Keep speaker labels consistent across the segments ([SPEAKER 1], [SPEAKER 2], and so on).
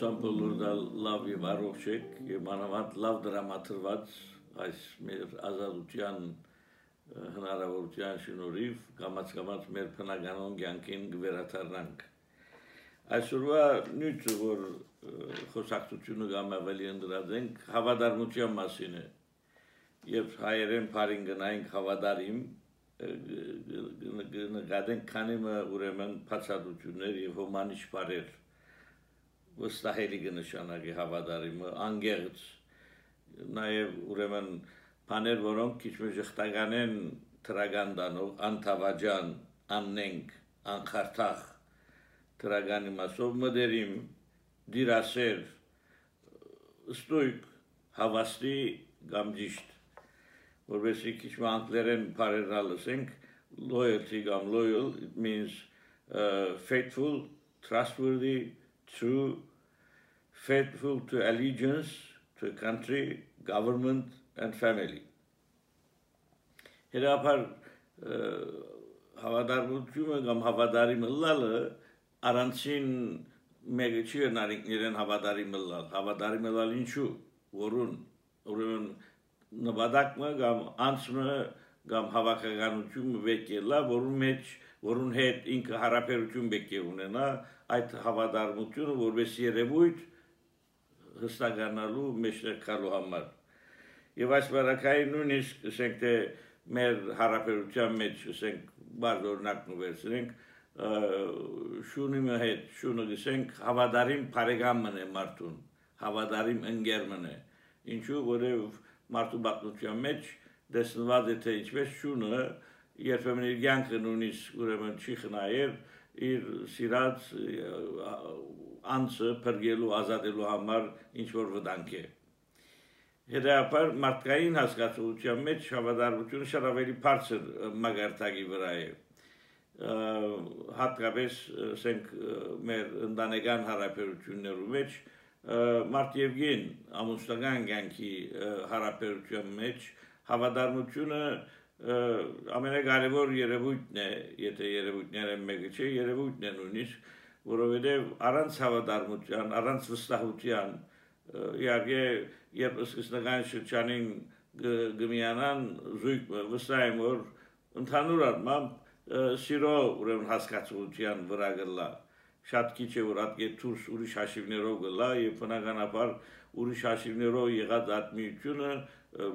[SPEAKER 1] Հուսամ բոլոր դա լավ եւ առողջ եք եւ մանավանդ լավ դրամատրված այս մեր ազատության հնարավորության շնորհիվ կամաց մեր բնականոն կյանքին կվերադառնանք այսօրվա նյութը որ խոսակցությունը կամ ավելի ընդրած հավատարմության մասին է եւ հայերեն բառին գնայինք հավատարիմ նկատենք քանի ուրեմն բացատրություններ եւ հոմանիշ բառեր վստահելի կնշանակի հավատարիմը անգերց նաև ուրեմն բաներ որոնք քիչ մի ժխտական են թրագան դանող անթավաջան աննենք անխարտախ թրագանի մասով մդերիմ դիրասեր ստույգ հավաստի կամ ճիշտ որովհետեւ քիչ մի անգլերեն բառերն լսենք loyalty կամ loyal it means faithful trustworthy true, faithful to allegiance to a country, government, and family. Հերապար հավատարմությունը կամ հավատարիմը լալը առանցին մեկը չի նարինքներեն հավատարիմը լալ, հավատարիմը լալ ինչու, որուն, ուրեմն նպատակը կամ անցումը կամ հավաքականությունը վեկելա, որուն հետ ինքը հարաբերություն պետք է ունենա այդ հավատարմությունը որպես երևույթ հստականալու մեջտեղելու համար եւ այս բարակային նույնիսկ ասենք թե մեր հարաբերության մեջ ասենք բարձ օրինակն վերցնենք շունի հետ շունը ասենք հավատարիմ բարեկամն է մարդուն հավատարիմ ընկերն է ինչու որով մարդու բացության մեջ դեսնված է թե ինչպես շունը երբեմն իր կյանքը նույնիսկ ուրեմն չի խնայել իր սիրած անձը փրկելու ազատելու համար ինչ որ վտանգ է հետեւաբար մարդկային հասկացության մեջ հավատարմությունը շատ ավելի բարձր մագարտակի վրա է հատկապես ասենք մեր ընտանեկան հարաբերություններու մեջ մարդ եւ գին ամուսնական կյանքի հարաբերության մեջ հավատարմությունը ամենակարևոր երևույթն է, եթե երևույթները մեկը չէ, երևույթն է նույնիսկ, որովհետև առանց հավատարմության, առանց վստահության, իհարկե, երբ սկզբնական շրջանին գմիանան զույգ վստահ եմ, որ ընդհանուր առմամբ սիրո ուրեմն հասկացության վրա գլա, շատ քիչ է որ այդ դուրս ուրիշ հաշիվներով գլա եւ բնականաբար ուրիշ հաշիվներով եղած ատմիությունը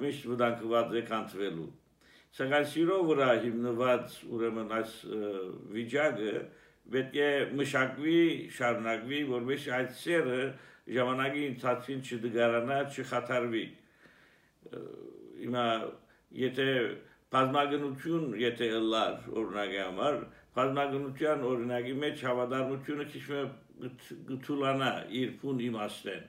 [SPEAKER 1] միշտ վտանգված է կանցվելու Սակայն սիրո վրա հիմնված ուրեմն այս վիճակը պետք է մշակվի, շարունակվի, որովհետեւ այդ սերը ժամանակի ընթացքին չդգարանա, չխաթարվի։ Հիմա եթե բազմագնություն եթե լար օրինակի համար, բազմագնության օրինակի մեջ հավատարմությունը քիչ գթուլանա իր փուն իմաստեն։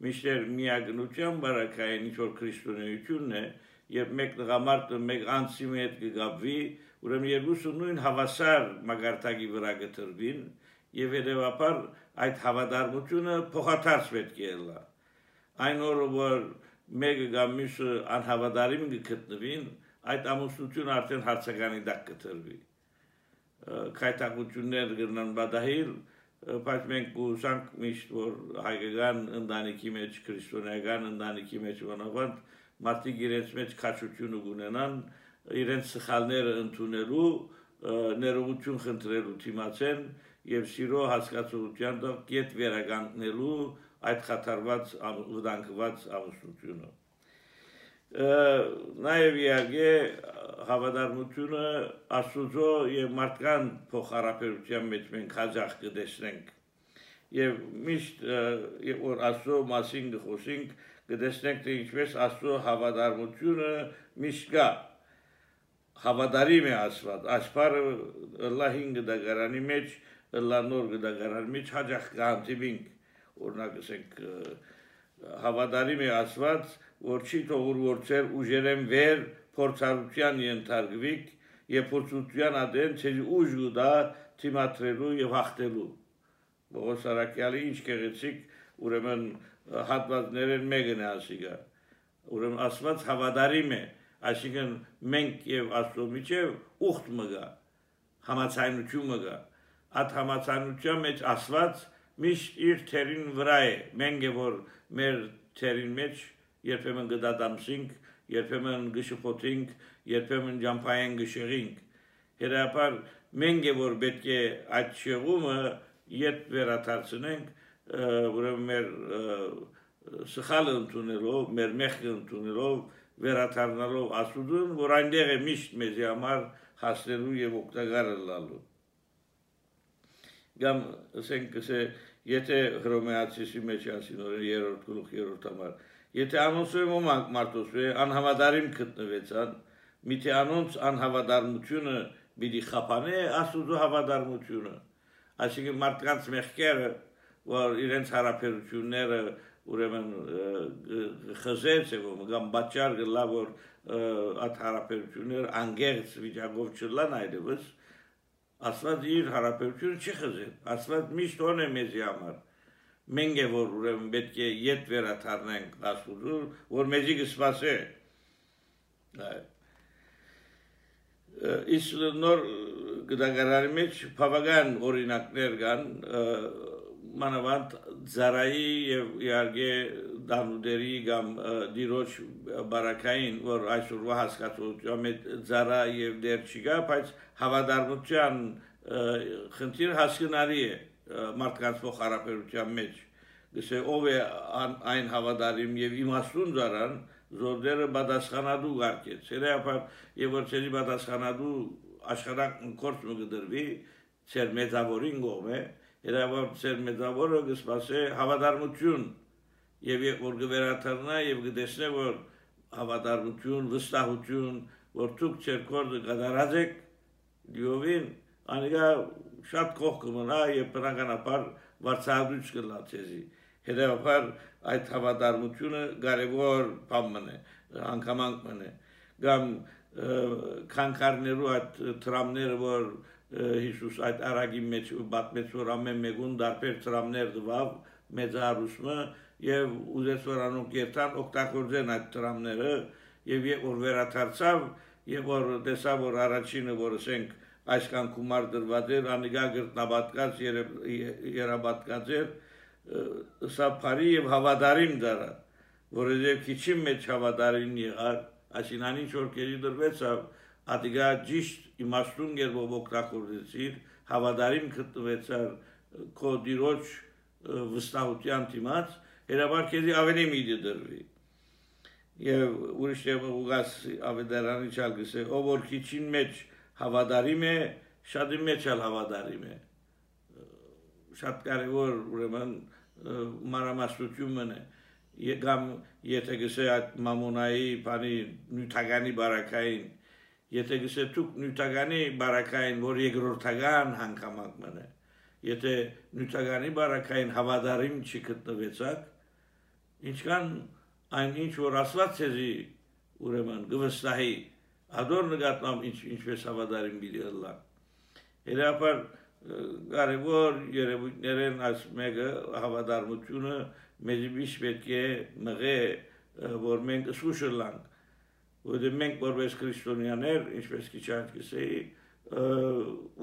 [SPEAKER 1] Միշտեր միագնության բարակային ինչ որ քրիստոնեությունն է Երբ մեկ տղամարդը մեկ անձի հետ կգաբվի, ուրեմն երկուսը նույն հավասար մագարտակի վրա կտրվին եւ հետեւաբար այդ հավատարմությունը փոխադարձ պետք է լա։ Այն օրը որ մեկը կամ մյուսը անհավատարիմ կգտնվին, այդ ամուսնությունը արդեն հարցականի տակ կտրվի։ Քայթակություններ կգնան բադահիլ, բայց մենք կուսանք միշտ որ հայկական ընտանիքի մեջ, քրիստոնեական ընտանիքի մեջ ոնավանդ մարդիկ իրենց մեջ քաչությունը ունենան իրենց սխալները ընդունելու ներողություն խնդրելու դիմացեն եւ սիրո հասկացության դեպք վերականգնելու այդ խաթարված վտանգված ամուսնությունը նաեւ իհարկե հավատարմությունը աստուծո եւ մարդկան փոխհարաբերության մեջ մենք հաջող կտեսնենք եւ միշտ եւ որ աստծո մասին խոսենք կտեսնենք թե ինչպես աստծո հավատարմությունը միշտ կա հավատարիմ է Աստված աշխարհը Ալլահին գդագարանի մեջ Ալլահնոր գդագարանի մեջ հաջող կհանդիպինք օրինակ ասենք հավատարիմ է Աստված որ չի թողուր որցեր ուժերեն վեր փորձառության ենթարկվիկ եւ փորձության ադեն ցեզ ուժ գուտա թիմատրելու եւ հաղթելու Բողոս Արաքյալի ինչ գեղեցիկ ուրեմն հատվածներն մեկն է ասիկա ուրեմն Աստված հավատարիմ է այսինքն մենք եւ Աստծո միջեւ ուխտ մգա համացայնություն մգա այդ համացայնության մեջ Աստված միշտ իր թերին վրա է, մենք է որ մեր թերին մեջ երբեմն գդադամսինք, երբեմն գշփոթինք, երբեմն ջամփային գշեղինք, հետապար մենք է որ պետք է այդ շեղումը ետ վերադարձնենք, ուրեմն մեր սխալը ընդունելով, մեր մեղքը ընդունելով, վերադառնալով Աստծուն, որ այնտեղ է միշտ մեզի համար հասնելու եւ օգտակար լինելու։ Գամ ասենք եթե հռոմեացիի մեջ ասին օրը 3-րդ գլուխ 3-րդ համար, եթե անոնցում ոմանք մարդոսու անհավատարիմ գտնվեցան, միթե անոնց անհավատարմությունը պիտի խափանե Աստծո հավատարմությունը, այսինքն մարդկանց մեղքերը, որ իրենց հարաբերությունները ուրեմն խզեց եւ կամ բաճար գլա որ այդ հարաբերությունները անգերց վիճակով չլան այդպես Աստված իր հարաբերությունը չի խզել, Աստված միշտ օն է մեզի համար, մենք է որ ուրեմն պետք է ետ վերադառնանք Աստծուն, որ մեզի կսպասե, իսկ նոր գդագարանի մեջ բավական օրինակներ կան, մանավանդ Զարայի եւ իհարկե Դանուդերի կամ Դիրոջ բարակային, որ այսօրվա հասկացության մեջ Զարա եւ դեր չկա, բայց հավատարմության խնդիր հասկանալի է մարդկանց փոխհարաբերության մեջ։ Գսե ով է այն հավատարիմ եւ իմաստուն Զարան, զորդերը պատասխանատու գարկեց։ Հետեւաբար եւ որ ցերի պատասխանատու աշխարհակ կորց մը գդրվի, ցեր մեծավորին գոմե Հետևաբար ծեր մեծավորը կսպասե հավատարմություն եւ որ կվերաթարնա եւ կտեսնե որ հավատարմություն, վստահություն, որ դուք ծեր կորձը կատարած եք, լիովին անիկա շատ կողք կմնա եւ բնականաբար վարձահատույց կլա ցեզի։ Հետևաբար այդ հավատարմությունը կարևոր բան է, անգամանք մնե։ Կամ քանքարներու այդ տրամները որ Հիսուս այդ արագի մեջ բացմեց որ ամեն մեկուն դարբեր տրամներ դվավ մեծարուսմը եւ ուզեց որ անոնք երթան օգտագործեն այդ տրամները եւ որ վերադարձավ եւ որ տեսավ որ առաջինը որ ասենք այսքան գումար դրված էր անիկա գրտնաբատկած երաբատկած էր սա բարի եւ հավատարիմ դարա որովհետեւ քիչի մեջ հավատարիմ եղար այսինքն ինչ որ կերի դրվեցավ Ադիգա ճիշտ իմաստուն գերբով օգտագործեցիր, հավատարիմ գտնվեցար քո դիրոջ վստահության դիմաց, հետաբար քեզի ավելի միտի դրվի։ Եվ ուրիշ ուղղած ավետարանի չալ գսե, ով որ քիչին մեջ հավատարիմ է, շատի մեջ էլ հավատարիմ է։ Շատ կարևոր ուրեմն մանրամասնությունն է։ Կամ եթե գսե այդ մամոնայի բանի նյութականի բարակային Եթե գսե դուք նյութականի բարակային, որ երկրորդական հանգամանք մնե, եթե նյութականի բարակային հավատարիմ չի գտնվեցաք, ինչքան այն ինչ որ Աստված ցեզի ուրեմն գվստահի, ադոր նկատմամբ ինչպես հավատարիմ պիտի լա։ Հետաբար կարևոր երևույթներն այս մեկը հավատարմությունը մեզ միշտ պետք է մղե, որ մենք զսուշ լանք Որտեղ մենք որպես քրիստոնյաներ, ինչպես քիչ անց գսեի,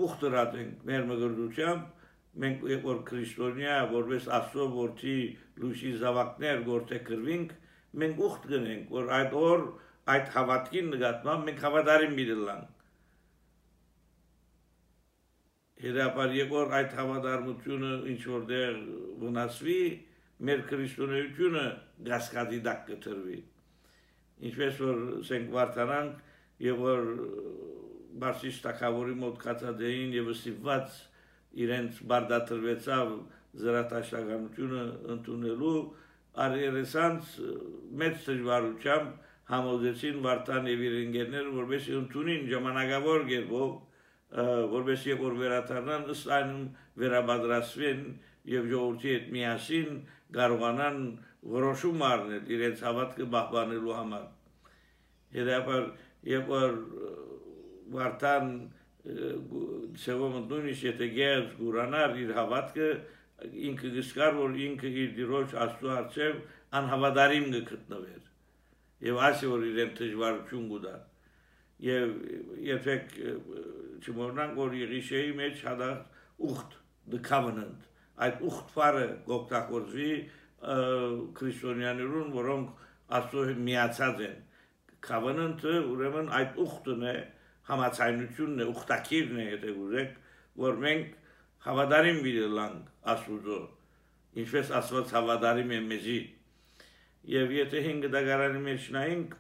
[SPEAKER 1] ուխտրած ենք մեր մգրդությամբ, մենք որ քրիստոնյա, որպես Աստծո որդի լույսի զավակներ գործե կրվինք, մենք ուխտ գնենք, որ այդ օր այդ հավատքին նկատմամբ մենք հավատարիմ լինենք։ Հետաբար որ այդ հավատարմությունը ինչ որտեղ վնասվի, մեր քրիստոնեությունը գասկադի դակ կտրվի։ Ինչպես որ սենք վարտանանք եւ որ բարձիչ թակավորի մոտ կացածային եւ ստիպված իրենց բարդատրվեցավ զրատաշտականությունը ընդունելու արերեսանց մեծ դժվարությամբ համոզեցին վարտան եւ իր ընկերները որովհետեւ ընդունին ժամանակավոր գերբով որովհետեւ որ վերադառնան ըստ այն վերաբադրասվեն եւ ժողովրդի հետ միասին կարողանան որոշում առնել իրենց հավատքը պահպանելու համար։ Հետաբար եւ որ վարտան սեվում նույնիսկ եթե գերս գուրանար իր հավատքը ինքը գսկար որ ինքը իր դիրոջ Աստծո առջև անհավատարիմ գտնվեր եւ ասի որ իրեն դժվարություն գուտա եւ երբեք չմոռնանք որ Եղիշեի մեջ հադա ուխտ the covenant այդ ուխտ բառը գոկտակորձվի քրիստոնյաներուն, որոնք Աստծո միացած են։ Covenant-ը ուրեմն այդ ուխտն է, համաձայնությունն է, ուխտակիրն է, եթե ուզեք, որ մենք հավատարիմ լինենք Աստծո, ինչպես Աստված հավատարիմ է մեզի։ Եվ եթե 5 դագարանի մեջ նայենք,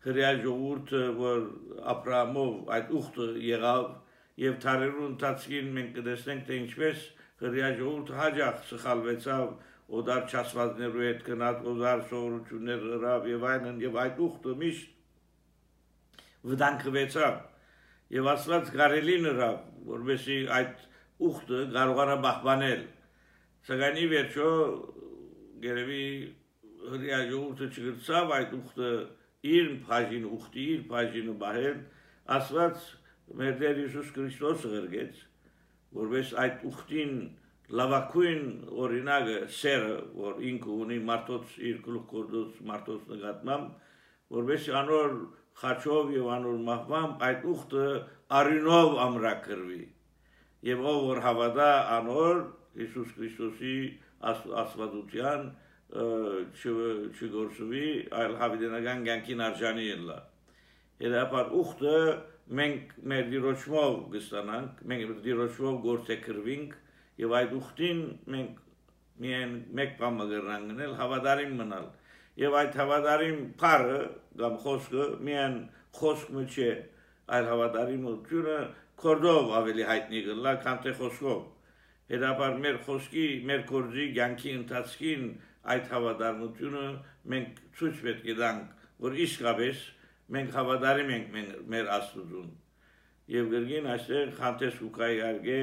[SPEAKER 1] հրեա ժողովուրդը, որ Աբրահամով այդ ուխտը եղավ, եւ թարերու ընթացքին մենք կտեսնենք, թե ինչպես հրեա ժողովուրդը հաջող սխալվեցավ, օդար չասվածներու հետ գնաց, օդար սովորություններ հրավ եւ այլն, եւ այդ ուխտը միշտ վտանգվեցավ եւ Աստված կարելի նրավ, որովհետեւ այդ ուխտը կարողանա պահպանել։ Սակայն ի վերջո գերեւի հրեա ժողովուրդը չգրծավ այդ ուխտը իր բաժին ուխտի իր բաժինը բահել, Աստված մեր Տեր Հիսուս Քրիստոսը ղրգեց, որովհետեւ այդ ուխտին լավակույն օրինակը սերը, որ ինքը ունի մարդոց իր գլուխգործոց մարդոց նկատմամբ, որովհետեւ անոր խաչով եւ անոր մահվամբ այդ ուխտը արյունով ամրագրվի եւ ով որ հավատա անոր Հիսուս Քրիստոսի աստվածության չգործվի, այլ հավիտենական կյանքին արժանի ելա։ Հետապար ուխտը մենք մեր դիրոճմով կստանանք, մենք դիրոճմով գործեքրվինք եւ այդ ուխտին մենք միայն մեկ բան կգրանք գնել, հավատարիմ մնալ։ Եվ այդ հավատարիմ բառը կամ խոսքը միայն խոսքը չէ, այլ հավատարիմությունը կորդով ավելի հայտնի կլա, քան թե խոսքով։ Հետապար մեր խոսքի, մեր գործի կյանքի ընթացքին այդ հավատարմությունը մենք ցույց պետք է տանք, որ իսկապես մենք հավատարիմ ենք մեր Աստծուն։ Եվ գրգին այստեղ խանտես ուկայի արգե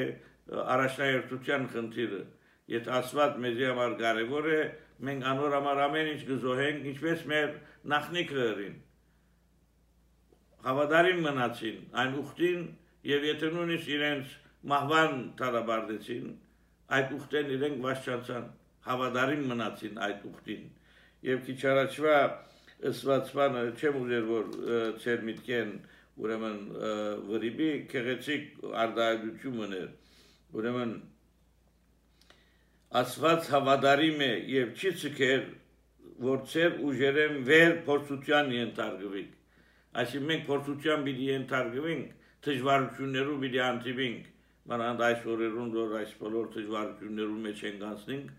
[SPEAKER 1] առաջնահերթության խնդիրը, եթե Աստված մեզի համար կարևոր է, մենք անոր համար ամեն ինչ կզոհենք, ինչպես մեր նախնիքերին հավատարիմ մնացին այն ուխտին, եւ եթե նույնիսկ իրենց մահվան տարաբարդեցին, այդ ուխտեն իրենք վաշճանցան, հավատարիմ մնացին այդ ուխտին։ Եվ քիչ առաջվա ըսված բանը չեմ ուզեր, որ ծեր միտքեն ուրեմն վրիբի քեղեցիկ արդայություն ուներ, ուրեմն Աստված հավատարիմ է եւ չի ցկեր, որ ծեր ուժերեն վեր փորձության ենթարկվի։ Այսինքն մենք փորձության պիտի ենթարկվենք, դժվարություններով պիտի հանդիպենք, մանավանդ այս օրերուն, որ այս բոլոր դժվարություններու մեջ ենք անցնենք,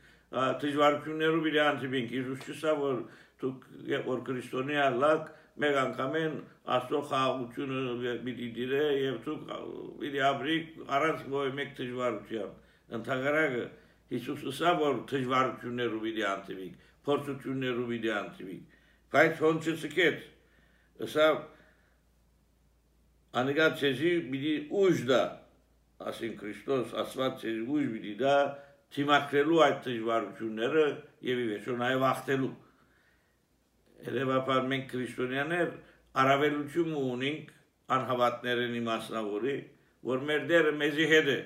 [SPEAKER 1] դժվարություններով պիտի հանդիպենք։ Հիսուս չսա, որ դուք որ քրիստոնյա լակ մեկ անգամեն Աստծո խաղաղությունը պիտի դիրե եւ դուք պիտի ապրիք առանց ոչ մեկ դժվարության։ Ընդհանրակը Հիսուսը սա որ դժվարություններով պիտի հանդիպենք, փորձություններով պիտի հանդիպենք, բայց ոնց չսկեց, սա Անիկա ցեզի պիտի ուժ դա, ասին Քրիստոս Աստված ցեզի ուժ պիտի դա թիմակրելու այդ դժվարությունները եւ ի վերջո նաեւ ախտելու։ Երևաբար մենք քրիստոնյաներ առավելություն ունենք անհավատներենի մասնավորի, որ մեր Տերը մեզի հետ է։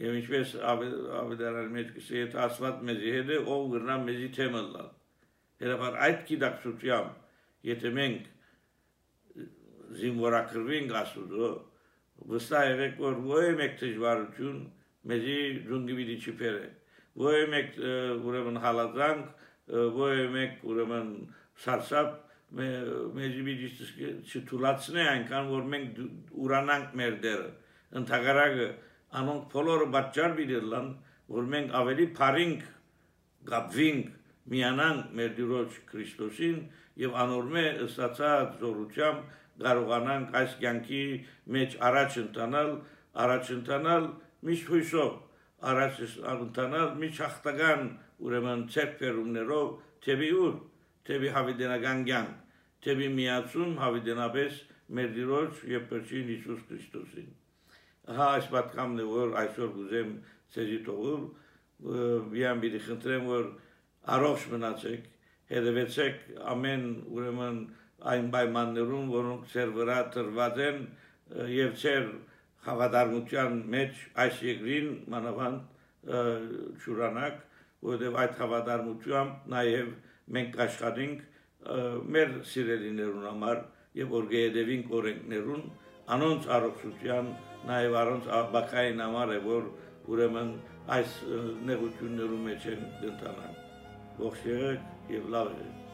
[SPEAKER 1] Եվ ինչպես ավետարանի մեջ կսի, եթե Աստված մեզի հետ է, ով կգնա մեզի թեմը լալ։ Երևաբար այդ գիտակցությամբ, եթե մենք զինվորակրվենք Աստծո, վստահ եղեք, որ ոչ մեկ դժվարություն մեզի ջունգի պիտի չփերը, ոչ մեկ ուրեմն հալածանք, ոչ մեկ ուրեմն սարսափ մեզի պիտի չթուլացնի այնքան, որ մենք ուրանանք մեր դերը։ Ընդհանրակը անոնք բոլորը պատճառ պիտի լան, որ մենք ավելի փարինք, գապվինք, միանանք մեր Տիրոջ Քրիստոսին եւ անորմե ըստացած զորությամբ կարողանանք այս կյանքի մեջ առաջ ընթանալ միշտ հույսով, առաջ ընթանալ միշտ հաղթական ուրեմն ցերկերումներով, թեպի ուր, թեպի հավիտենական կյանք, թեպի միացում հավիտենապես մեր Տիրոջ եւ Փրկին Հիսուս Քրիստոսին։ Ահա այս պատկամն է, որ այսօր կուզեմ ցեզի թողել, միան պիտի խնդրեմ, որ առողջ մնացեք, հետևեցեք ամեն ուրեմն այն պայմաններում, որոնք ծեր վրա տրված են եւ ծեր հավատարմության մեջ այս երկրին մանավանդ ճուրանակ, որովհետեւ այդ հավատարմությամբ նաեւ մենք աշխատենք մեր սիրելիներուն համար եւ որ գեդևին օրենքներուն անոնց առողջության նաեւ առոնց բակային համար է որ ուրեմն այս նեղություններում մեջ են ընտանան։ Ողջ եղեք եւ լավ եղեք։